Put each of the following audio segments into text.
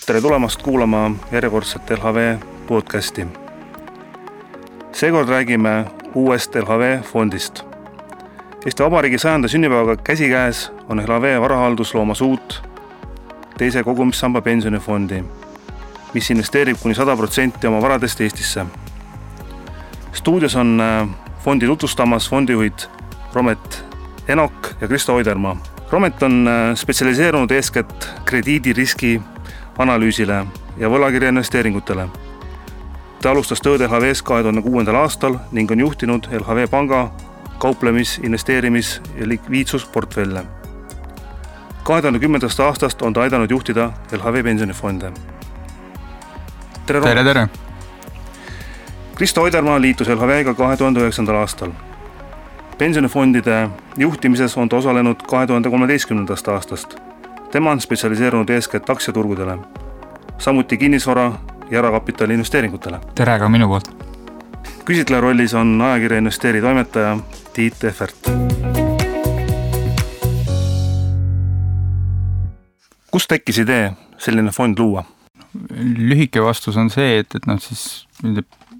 Tere tulemast kuulama järjekordset LHV podcasti. Seekord räägime uuest LHV fondist. Eesti Vabariigi 100. sünnipäevaga käsikäes on LHV varahaldus loomas uut teise kogumissamba pensionifondi, mis investeerib kuni 100% oma varadest Eestisse. Stuudios on fondi tutvustamas fondijuhid Romet Enok ja Kristo Oidermaa. Romet on spetsialiseerunud eeskätt krediidiriski analüüsile ja võlakirja investeeringutele. Ta alustas tööd LHV-s 2006. aastal ning on juhtinud LHV panga kauplemis-, investeerimis- ja likviidsusportfelle. 2010. aastast on ta aidanud juhtida LHV pensionifonde. Tere! Kristo Oidermaa liitus LHV-ga 2009. aastal. Pensionifondide juhtimises on ta osalenud 2013. aastast. Tema on spetsialiseerunud eeskätt aktsiaturgudele, samuti kinnisvara ja erakapitali investeeringutele. Tere ka minu poolt. Küsitleja rollis on ajakirja Investeeri toimetaja Tiit Ehvert. Kust tekkis idee selline fond luua? Lühike vastus on see, et siis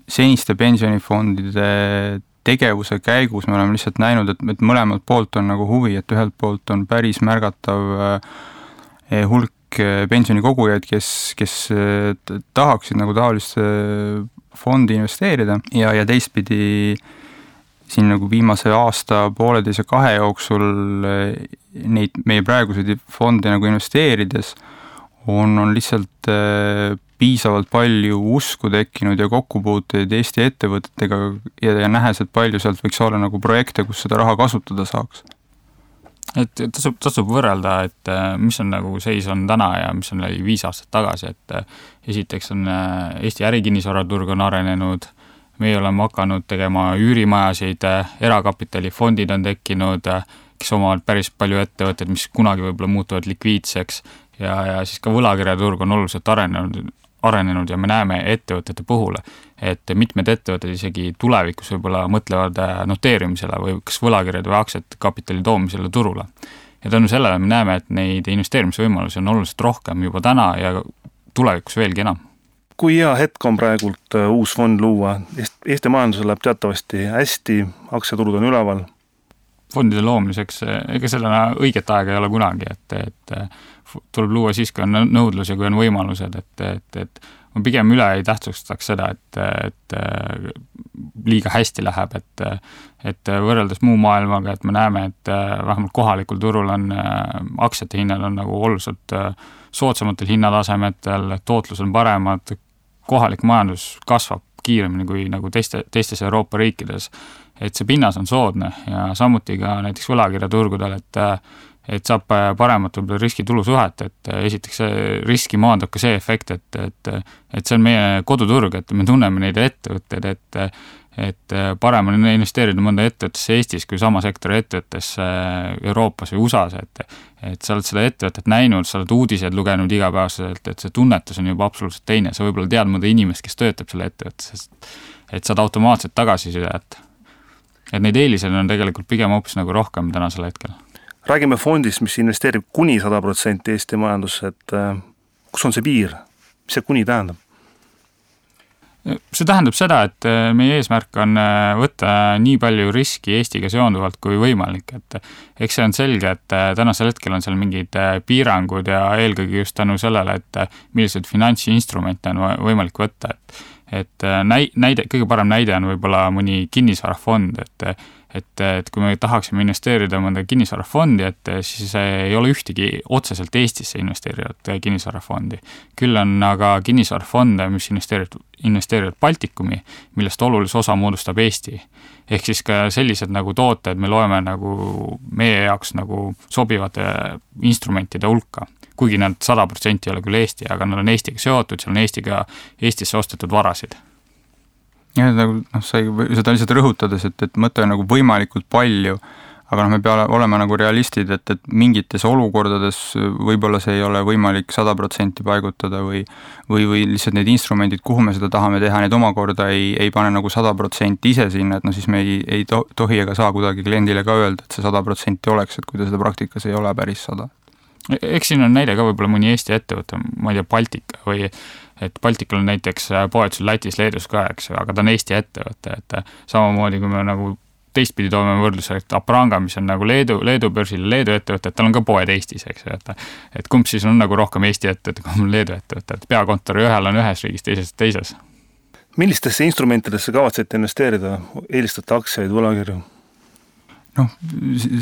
seniste pensionifondide tegevuse käigus me oleme lihtsalt näinud, et mõlemalt poolt on nagu huvi, et ühelt poolt on päris märgatav hulk pensionikogujaid, kes tahaksid nagu taoliste fondi investeerida ja teistpidi siin nagu viimase aasta, pooleteise, 2 jooksul neid meie praeguseid fonde nagu investeerides on lihtsalt piisavalt palju usku tekkinud ja kokkupuuteid Eesti ettevõtetega ja nähes, et palju sealt võiks olla nagu projekte, kus seda raha kasutada saaks. Et tasub võrrelda, et mis on nagu seis on täna ja mis on 5 aastat tagasi, et esiteks on Eesti ärikinnisvaraturg on arenenud, meie oleme hakanud tegema üürimajasid, erakapitalifondid on tekkinud, kes omavad päris palju ettevõtteid, mis kunagi võib-olla muutuvad likviidseks ja siis ka võlakirjaturg on oluliselt arenenud ja me näeme ettevõtete puhul, et mitmed ettevõtted isegi tulevikus võib-olla mõtlevad noteerimisele või kas võlakirjad või aktsiat kapitali toomisele turule. Ja tänu sellele me näeme, et neid investeerimisvõimalusi on oluliselt rohkem juba täna ja tulevikus veelgi enam. Kui hea hetk on praegult uus fond luua? Eesti majandusel läheb teatavasti hästi, aktsiaturud on üleval. Fondide loomiseks, ega sellena õiget aega ei ole kunagi, et tuleb luua siis, kui on nõudlus ja kui on võimalused, et ma pigem üle ei tähtsustaks seda, et liiga hästi läheb, et võrreldes muu maailmaga, et me näeme, et vähemalt kohalikul turul on aktsiate hinnad on nagu oluliselt soodsamatel hinnatasemetel, tootlus on paremad, kohalik majandus kasvab kiiremini kui nagu teistes Euroopa riikides, et see pinnas on soodne ja samuti ka näiteks võlakirjaturgudel, et saab paremat riski-tulu suhet, et esiteks riski maandab ka see efekt, et see on meie koduturg, et me tunneme neid ettevõtteid, et parem on investeerida mõnda ettevõttesse Eestis kui sama sektori ettevõttesse Euroopas või USAs, et sa oled seda ettevõtet näinud, sa oled uudiseid lugenud igapäevaselt, et see tunnetus on juba absoluutselt teine, sa võib-olla tead mõnda inimest, kes töötab selle ettevõttes, et saad automaatselt tagasiside, et neid eeliseid on tegelikult pigem hoopis nagu rohkem tänasel hetkel. Räägime fondist, mis investeerib kuni 100% Eesti majandusse, et kus on see piir? Mis see kuni tähendab? See tähendab seda, et meie eesmärk on võtta nii palju riski Eestiga seonduvalt kui võimalik, et eks see on selge, et tänasel hetkel on seal mingid piirangud ja eelkõige just tänu sellele, et millised finantsinstrumente on võimalik võtta, et kõige parem näide on võib-olla mõni kinnisvarafond, et kui me tahaksime investeerida mõnda kinnisvarafondi, et siis ei ole ühtegi otseselt Eestisse investeerivat kinnisvarafondi. Küll on aga kinnisvarafonde, mis investeerivad Baltikumi, millest olulise osa moodustab Eesti. Ehk siis ka sellised nagu tooted me loeme nagu meie jaoks nagu sobivate instrumentide hulka. Kuigi nad 100% ei ole küll Eesti, aga nad on Eestiga seotud, seal on Eestisse ostetud varasid. Ja sa seda lihtsalt rõhutades, et mõte on nagu võimalikult palju, aga me peame olema nagu realistid, et mingites olukordades võib-olla see ei ole võimalik 100% paigutada või lihtsalt need instrumendid, kuhu me seda tahame teha, need omakorda ei pane nagu 100% ise sinna, et siis me ei tohi ega saa kuidagi kliendile ka öelda, et see 100% oleks, et kui ta seda praktikas ei ole päris 100%. Eks siin on näide ka võib-olla mõni Eesti ettevõte, ma ei tea, Baltika või et Baltikal on näiteks poetusel Lätis, Leedus ka, eks, aga ta on Eesti ettevõte, et samamoodi kui me nagu teistpidi toome võrdluse, et Apranga, mis on nagu Leedu börsil Leedu ettevõte, et tal on ka poed Eestis, eks ju, et kumb siis on nagu rohkem Eesti ettevõte, kui on Leedu ettevõte, et peakontori ühel on ühes riigis, teises. Millistesse instrumentidesse kavatsete investeerida? Eelistate aktsiaid, võlakirju?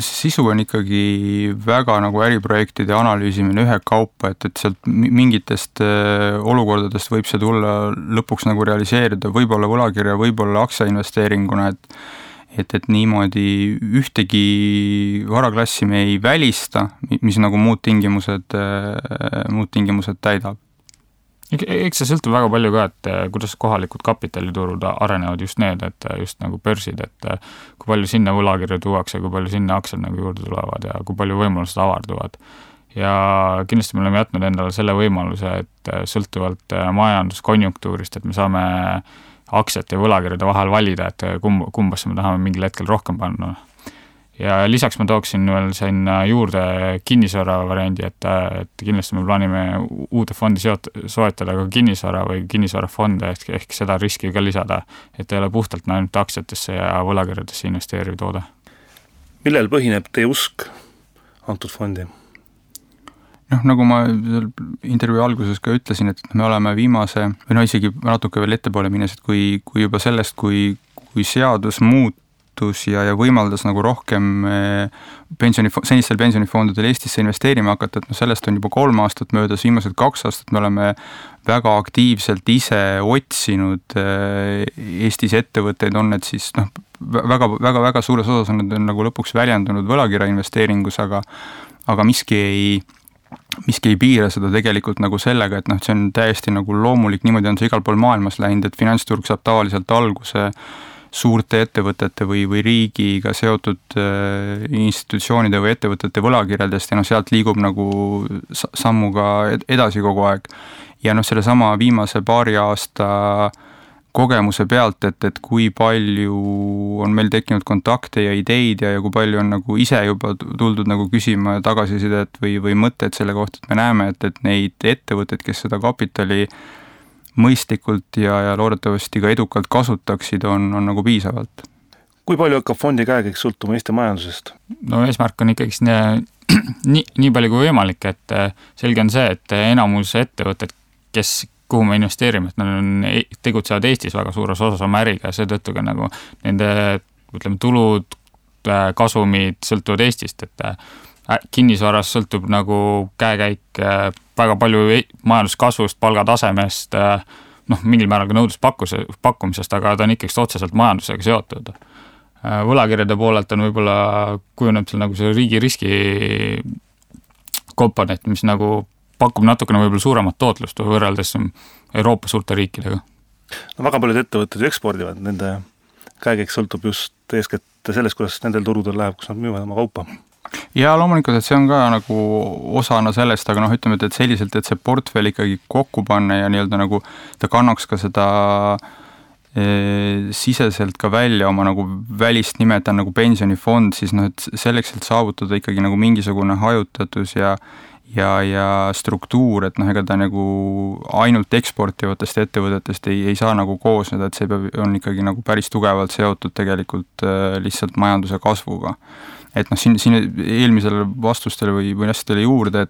Sisu on ikkagi väga nagu äriprojektide analüüsimine ühe kaupa, et sealt mingitest olukordadest võib see tulla lõpuks nagu realiseerida, võib-olla võlakirja, võib-olla aktsiainvesteeringuna, et niimoodi ühtegi varaklassi me ei välista, mis nagu muud tingimused täidab. Eks see sõltub väga palju ka, et kuidas kohalikud kapitaliturud arenevad just need, et just nagu börsid, et kui palju sinna võlakirju tuuakse, kui palju sinna aktsiad nagu juurde tulevad ja kui palju võimalused avarduvad. Ja kindlasti me oleme jätnud endale selle võimaluse, et sõltuvalt majanduskonjunktuurist, et me saame aktsiate ja võlakirjade vahel valida, et kumbasse me tahame mingil hetkel rohkem panna. Ja lisaks ma tooksin veel sinna juurde kinnisvara variandi, et kindlasti me plaanime uute fondi soetada ka kinnisvara või kinnisvarafonde ehk seda riski ka lisada, et ei ole puhtalt ainult aktsiatesse ja võlakirjadesse investeeriv toode. Millel põhineb teie usk antud fondi? Nagu ma intervjuu alguses ka ütlesin, et me oleme viimase, või isegi natuke veel ettepoole minnes, et kui juba sellest, kui seadus ja võimaldas nagu rohkem senistel pensionifondidel Eestisse investeerima hakata, et sellest on juba 3 aastat möödas, viimased 2 aastat me oleme väga aktiivselt ise otsinud Eestis ettevõtteid, on need siis väga suures osas on need nagu lõpuks väljendunud võlakirja investeeringus, aga miski ei piira seda tegelikult nagu sellega, et see on täiesti nagu loomulik, niimoodi on see igal pool maailmas läinud, et finantsturg saab tavaliselt alguse suurte ettevõtete või riigiga seotud institutsioonide või ettevõtete võlakirjadest ja sealt liigub nagu sammuga edasi kogu aeg. Ja selle sama viimase 2 aasta kogemuse pealt, et kui palju on meil tekkinud kontakte ja ideid ja kui palju on nagu ise juba tuldud nagu küsima tagasisidet või mõtted selle kohta, et me näeme, et neid ettevõtteid, kes seda kapitali mõistlikult ja loodetavasti ka edukalt kasutaksid, on nagu piisavalt. Kui palju hakkab fondi käekäik sõltuma Eesti majandusest? Eesmärk on ikkagi nii palju kui võimalik, et selge on see, et enamus ettevõtted, kuhu me investeerime, et nad tegutsevad Eestis väga suures osas oma äriga ja seetõttu ka nagu nende tulud, kasumid sõltuvad Eestist, et kinnisvaras sõltub nagu käekäik väga palju majanduskasvust, palgatasemest, mingil määral ka nõudluspakkumisest, aga ta on ikkagi otseselt majandusega seotud. Võlakirjade poolelt on võib-olla kujuneb seal nagu see riigi riski komponent, mis nagu pakub natukene võib-olla suuremat tootlust võrreldes Euroopa suurte riikidega. Väga paljud ettevõtted ekspordivad, nende käekäik sõltub just eeskätt sellest, kuidas nendel turudel läheb, kus nad müüvad oma kaupa. Ja loomulikult, et see on ka nagu osana sellest, aga ütleme, et selliselt, et see portfell ikkagi kokku panna ja nii-öelda nagu ta kannaks ka seda siseselt ka välja oma nagu välist nimetan nagu pensionifond, siis et selleks, et saavutada ikkagi nagu mingisugune hajutatus ja struktuur, et ega ta nagu ainult eksportivatest ettevõtetest ei saa nagu koosneda, et see on ikkagi nagu päris tugevalt seotud tegelikult lihtsalt majanduse kasvuga. Et siin eelmisele vastustele või asjadele juurde,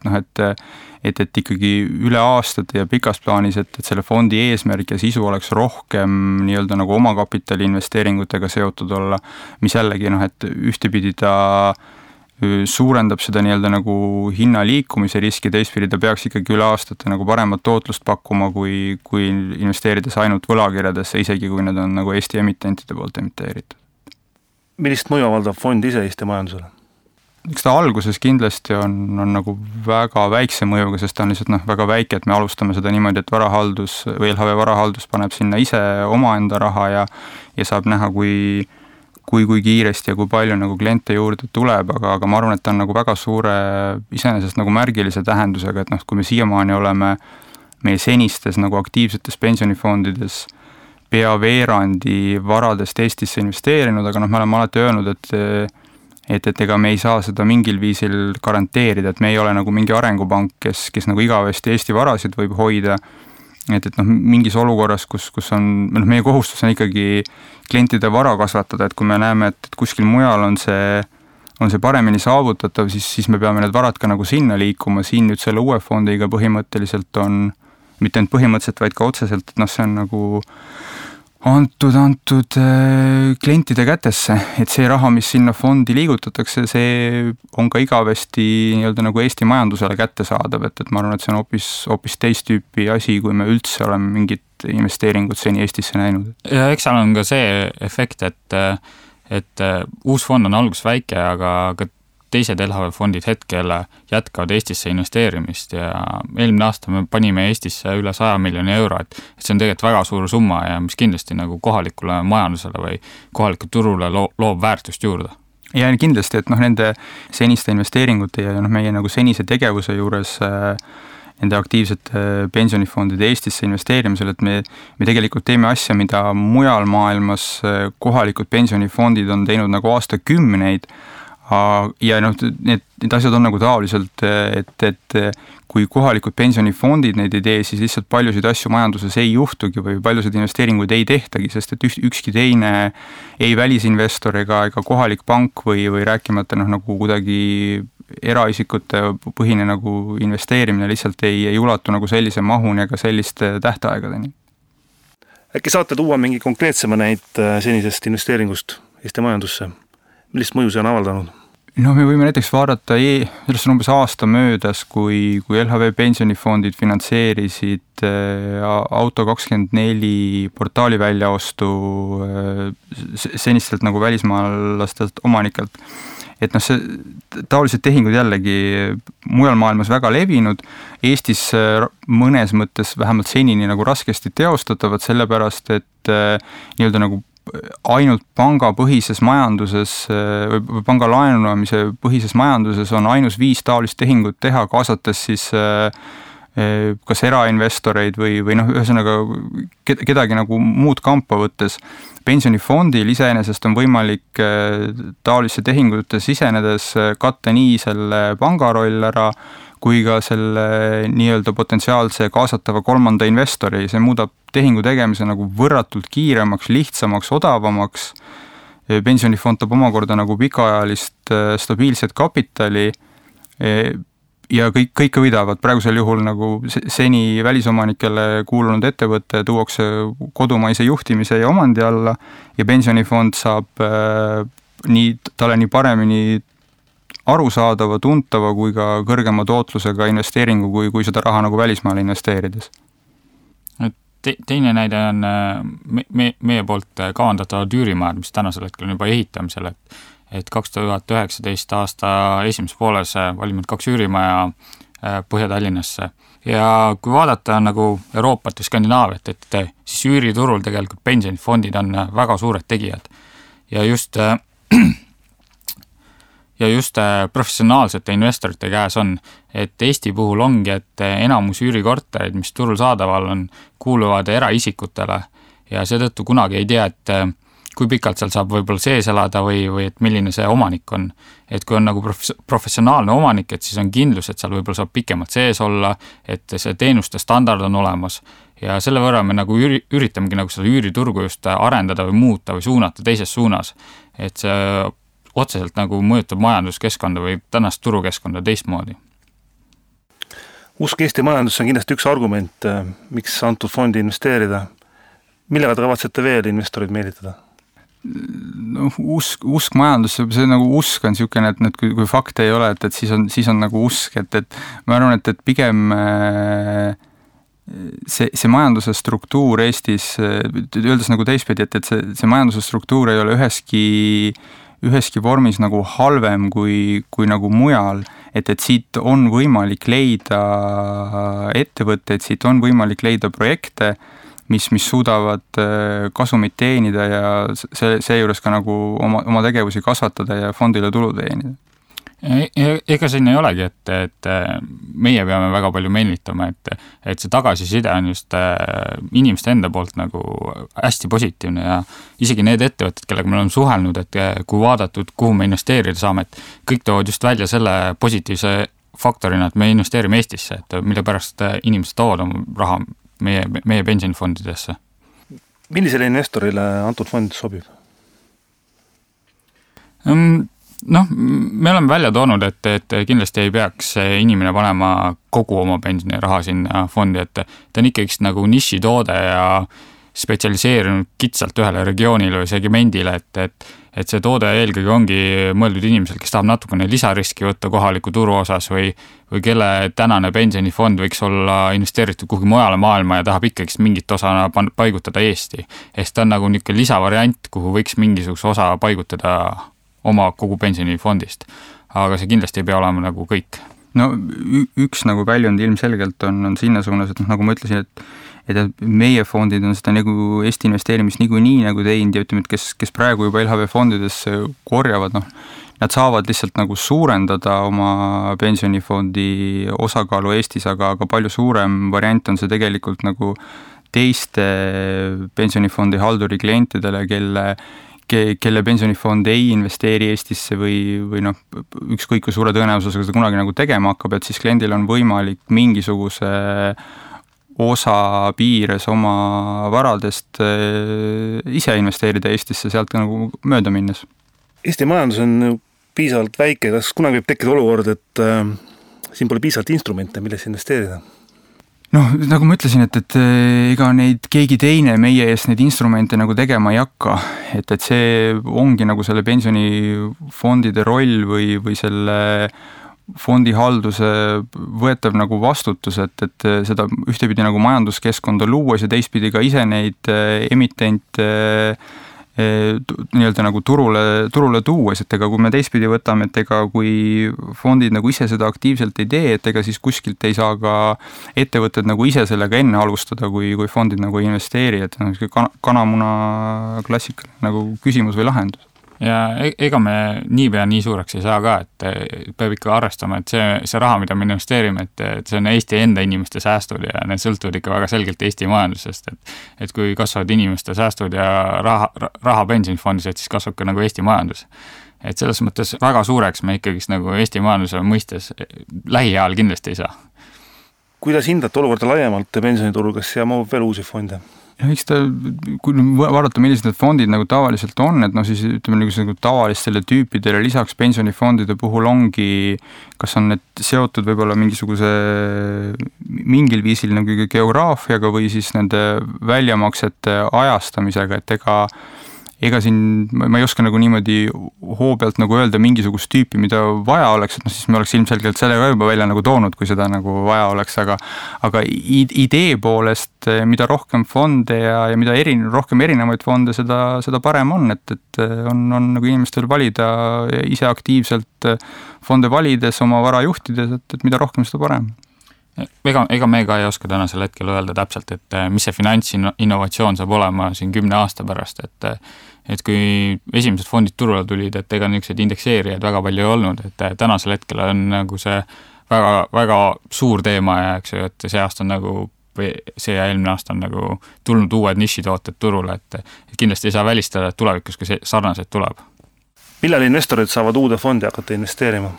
et ikkagi üle aastate ja pikas plaanis, et selle fondi eesmärk ja sisu oleks rohkem nii-öelda nagu omakapitali investeeringutega seotud olla, mis jällegi, et ühtepidi ta suurendab seda nii-öelda nagu hinna liikumise riski, teistpidi ta peaks ikkagi üle aastate nagu paremat tootlust pakkuma, kui investeerides ainult võlakirjadesse, isegi kui need on nagu Eesti emitentide poolt emiteeritud. Millist mõju avaldab fond ise Eesti majandusele? Eks ta alguses kindlasti on nagu väga väikse mõjuga, sest ta on lihtsalt väga väike, et me alustame seda niimoodi, et varahaldus või LHV varahaldus paneb sinna ise omaenda raha ja saab näha, kui kiiresti ja kui palju nagu kliente juurde tuleb, aga ma arvan, et ta on nagu väga suure, iseenesest nagu märgilise tähendusega, et kui me siiamaani oleme meie senistes nagu aktiivsetes pensionifondides pea veerandi varadest Eestisse investeerinud, aga me oleme alati öelnud, et ega me ei saa seda mingil viisil garanteerida, et me ei ole nagu mingi arengupank, kes nagu igavesti Eesti varasid võib hoida, et mingis olukorras, kus on, meie kohustus on ikkagi klientide vara kasvatada, et kui me näeme, et kuskil mujal on see paremini saavutatav, siis me peame need varad ka nagu sinna liikuma, siin nüüd selle uue fondiga põhimõtteliselt on, mitte ainult põhimõtteliselt, vaid ka otseselt, et see on nagu antud klientide kätesse, et see raha, mis sinna fondi liigutatakse, see on ka igavesti nii-öelda nagu Eesti majandusele kättesaadav, et ma arvan, et see on hoopis teist tüüpi asi, kui me üldse oleme mingit investeeringut seni Eestisse näinud. Ja eks seal on ka see efekt, et uus fond on alguses väike, aga ka teised LHV fondid hetkel jätkavad Eestisse investeerimist ja eelmine aasta me panime Eestisse üle 100 miljoni euro, et see on tegelikult väga suur summa ja mis kindlasti nagu kohalikule majandusele või kohalikule turule loob väärtust juurde. Ja kindlasti, et nende seniste investeeringute ja meie nagu senise tegevuse juures nende aktiivsete pensionifondide Eestisse investeerimisel, et me tegelikult teeme asja, mida mujal maailmas kohalikud pensionifondid on teinud nagu aastakümneid. Ja need asjad on nagu taoliselt, et kui kohalikud pensionifondid neid ei tee, siis lihtsalt paljusid asju majanduses ei juhtugi või paljusid investeeringuid ei tehtagi, sest et ükski teine ei välisinvestor ega kohalik pank või rääkimata nagu kuidagi eraisikute põhine nagu investeerimine lihtsalt ei ulatu nagu sellise mahuni ega selliste tähtaegadeni. Äkki saate tuua mingi konkreetsema näit senisest investeeringust Eesti majandusse? Millist mõju see on avaldanud? Me võime näiteks vaadata, sellest on umbes aasta möödas, kui LHV pensionifondid finantseerisid Auto24 portaali väljaostu senistelt nagu välismaalastelt omanikelt. Et see taolised tehingud jällegi mujal maailmas väga levinud, Eestis mõnes mõttes vähemalt senini nagu raskesti teostatavad, sellepärast et nii-öelda nagu ainult pangapõhises majanduses või panga laenuamise põhises majanduses on ainus 5 taolist tehingut teha, kaasates siis kas erainvestoreid või ühesõnaga kedagi nagu muud kampa võttes. Pensionifondil iseenesest on võimalik taolisse tehingute sisenedes katta nii selle panga roll ära, kui ka selle nii-öelda potentsiaalse kaasatava kolmanda investori. See muudab tehingu tegemise nagu võrratult kiiremaks, lihtsamaks, odavamaks. Pensionifond toob omakorda nagu pikaajalist stabiilset kapitali ja kõik võidavad. Praegusel juhul nagu seni välisomanikele kuulunud ettevõtte tuuakse kodumaise juhtimise ja omandi alla ja pensionifond saab talle nii paremini arusaadava, tuntava kui ka kõrgema tootlusega investeeringu, kui seda raha nagu välismaale investeerides. Teine näide on meie poolt kavandatavad üürimajad, mis tänasel hetkel on juba ehitamisel, et 2019 aasta esimeses pooles valminud 2 üürimaja Põhja-Tallinnasse. Ja kui vaadata nagu Euroopat ja Skandinaaviat, et siis üüriturul tegelikult pensionifondid on väga suured tegijad ja just professionaalsete investorite käes on, et Eesti puhul ongi, et enamus üürikorterid, mis turul saadaval on, kuuluvad eraisikutele ja seetõttu kunagi ei tea, et kui pikalt seal saab võib-olla sees elada või et milline see omanik on. Et kui on nagu professionaalne omanik, et siis on kindlus, et seal võib-olla saab pikemalt sees olla, et see teenuste standard on olemas ja selle võrra me nagu üritamegi nagu seda üüriturgu just arendada või muuta või suunata teises suunas, et see otseselt nagu mõjutab majanduskeskkonda või tänast turukeskkonda teistmoodi. Usk Eesti majandusse on kindlasti üks argument, miks antud fondi investeerida. Millega te kavatsete veel investorid meelitada? Usk majandusse, see nagu usk on niisugune, et kui fakte ei ole, et siis on nagu usk, et ma arvan, et pigem see majanduse struktuur Eestis, öeldes nagu teistpidi, et see majanduse struktuur ei ole üheski vormis nagu halvem kui nagu mujal, et siit on võimalik leida ettevõtteid, siit on võimalik leida projekte, mis suudavad kasumit teenida ja see juures ka nagu oma tegevusi kasvatada ja fondile tulu teenida. Ega siin ei olegi, et meie peame väga palju meelitama, et see tagasiside on just inimeste enda poolt nagu hästi positiivne ja isegi need ettevõtted, kellega me oleme suhelnud, et kui vaadatud, kuhu me investeerida saame, et kõik toovad just välja selle positiivse faktorina, et me investeerime Eestisse, et mille pärast inimesed toovad oma raha meie pensionifondidesse. Millisele investorile antud fond sobib? Me oleme välja toonud, et kindlasti ei peaks inimene panema kogu oma pensioniraha sinna fondi, et ta on ikkagi nagu nišitoode ja spetsialiseerinud kitsalt ühele regioonile või segmendile, et see toode eelkõige ongi mõeldud inimesel, kes tahab natukene lisariski võtta kohaliku turu osas või kelle tänane pensionifond võiks olla investeeritud kuhugi mujale maailma ja tahab ikkagi mingit osa paigutada Eesti. Ehk ta on nagu niisugune lisavariant, kuhu võiks mingisuguse osa paigutada oma kogu pensionifondist. Aga see kindlasti ei pea olema nagu kõik. No üks nagu väljund ilmselgelt on sinna suunas, et nagu ma ütlesin, et meie fondid on seda nagu Eesti investeerimist nii nagu teinud ja ütleme, et kes praegu juba LHV fondides korjavad, nad saavad lihtsalt nagu suurendada oma pensionifondi osakaalu Eestis, aga palju suurem variant on see tegelikult nagu teiste pensionifondi halduri klientidele, kelle pensionifond ei investeeri Eestisse või ükskõik kui suure tõenäosusega seda kunagi nagu tegema hakkab, et siis kliendil on võimalik mingisuguse osa piires oma varadest ise investeerida Eestisse sealt nagu mööda minnes. Eesti majandus on piisavalt väike, kas kunagi võib tekkida olukord, et siin pole piisavalt instrumente, milles investeerida? Nagu ma ütlesin, et ega neid keegi teine meie eest neid instrumente nagu tegema ei hakka, et see ongi nagu selle pensionifondide roll või selle fondihalduse võetav nagu vastutus, et seda ühtepidi nagu majanduskeskkonda luues ja teistpidi ka ise neid emitente nii-öelda nagu turule tuues, et ega kui me teistpidi võtame, et ega kui fondid nagu ise seda aktiivselt ei tee, et ega siis kuskilt ei saa ka ettevõtted nagu ise sellega enne alustada, kui fondid nagu investeeri, et kanamuna klassikaline nagu küsimus või lahendus. Ja ega me niipea nii suureks ei saa ka, et peab ikka arvestama, et see raha, mida me investeerime, et see on Eesti enda inimeste säästud ja need sõltuvad ikka väga selgelt Eesti majandusest, et kui kasvavad inimeste säästud ja raha pensionifondis, et siis kasvab ka nagu Eesti majandus. Et selles mõttes väga suureks me ikkagi nagu Eesti majanduse mõistes lähiajal kindlasti ei saa. Kuidas hindate olukorda laiemalt pensioniturul, kas siia mahub veel uusi fonde? Eks kui vaadata, millised need fondid nagu tavaliselt on, et siis ütleme nagu tavalistele tüüpidele lisaks pensionifondide puhul ongi, kas on need seotud võib-olla mingil viisil nagu geograafiaga või siis nende väljamaksete ajastamisega, et ega siin ma ei oska nagu niimoodi hoo pealt nagu öelda mingisugust tüüpi, mida vaja oleks, et siis me oleks ilmselgelt selle ka juba välja nagu toonud, kui seda nagu vaja oleks, aga idee poolest, mida rohkem fonde ja mida rohkem erinevaid fonde, seda parem on, et on nagu inimestel valida ise aktiivselt fonde valides, oma vara juhtides, et mida rohkem, seda parem. Ega me ka ei oska tänasel hetkel öelda täpselt, et mis see finantsinnovatsioon saab olema siin 10 aasta pärast, et kui esimesed fondid turule tulid, et ega niisugused indekseerijaid väga palju ei olnud, et tänasel hetkel on nagu see väga, väga suur teema ja eks ju, et see aasta on nagu see ja eelmine aasta on nagu tulnud uued nišitooted turule, et kindlasti ei saa välistada, et tulevikus ka sarnaseid tuleb. Millal investorid saavad uude fondi hakata investeerima?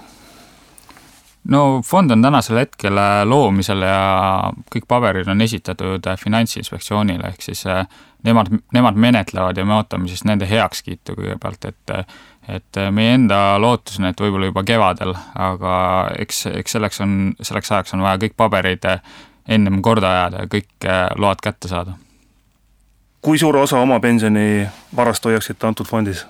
Fond on tänasel hetkel loomisel ja kõik paberid on esitatud Finantsinspektsioonile, ehk siis nemad menetlevad ja me ootame siis nende heakskiitu kõigepealt, et meie enda lootus on, et võib-olla juba kevadel, aga eks selleks ajaks on vaja kõik paberid ennem korda ajada ja kõik load kätte saada. Kui suure osa oma pensioni varast hoiaksite antud fondis?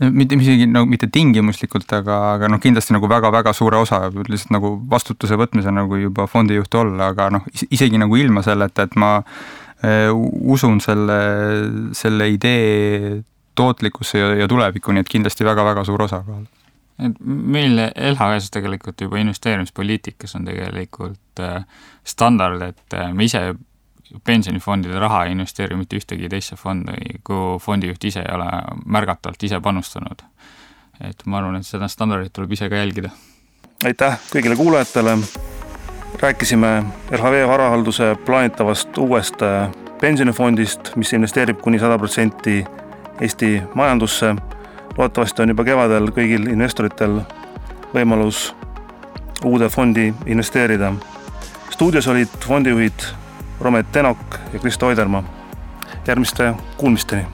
Mitte tingimuslikult, aga kindlasti nagu väga-väga suure osa, lihtsalt nagu vastutuse võtmise nagu juba fondijuht olla, aga isegi nagu ilma selleta, et ma usun selle idee tootlikkusse ja tulevikku, nii et kindlasti väga-väga suur osa kohal. Meil LHV-s tegelikult juba investeerimispoliitikas on tegelikult standard, et me ise pensionifondide raha ei investeeri mitte ühtegi teisse fondi, kui fondijuht ise ei ole märgatavalt ise panustanud. et ma arvan, et seda standardit tuleb ise ka jälgida. Aitäh kõigile kuulajatele. Rääkisime LHV varahalduse plaanitavast uuest pensionifondist, mis investeerib kuni 100% Eesti majandusse. Loodetavasti on juba kevadel kõigil investoritel võimalus uude fondi investeerida. Stuudios olid fondijuhid Romet Tenok ja Kristo Oidermaa. Järgmiste kuulmisteni!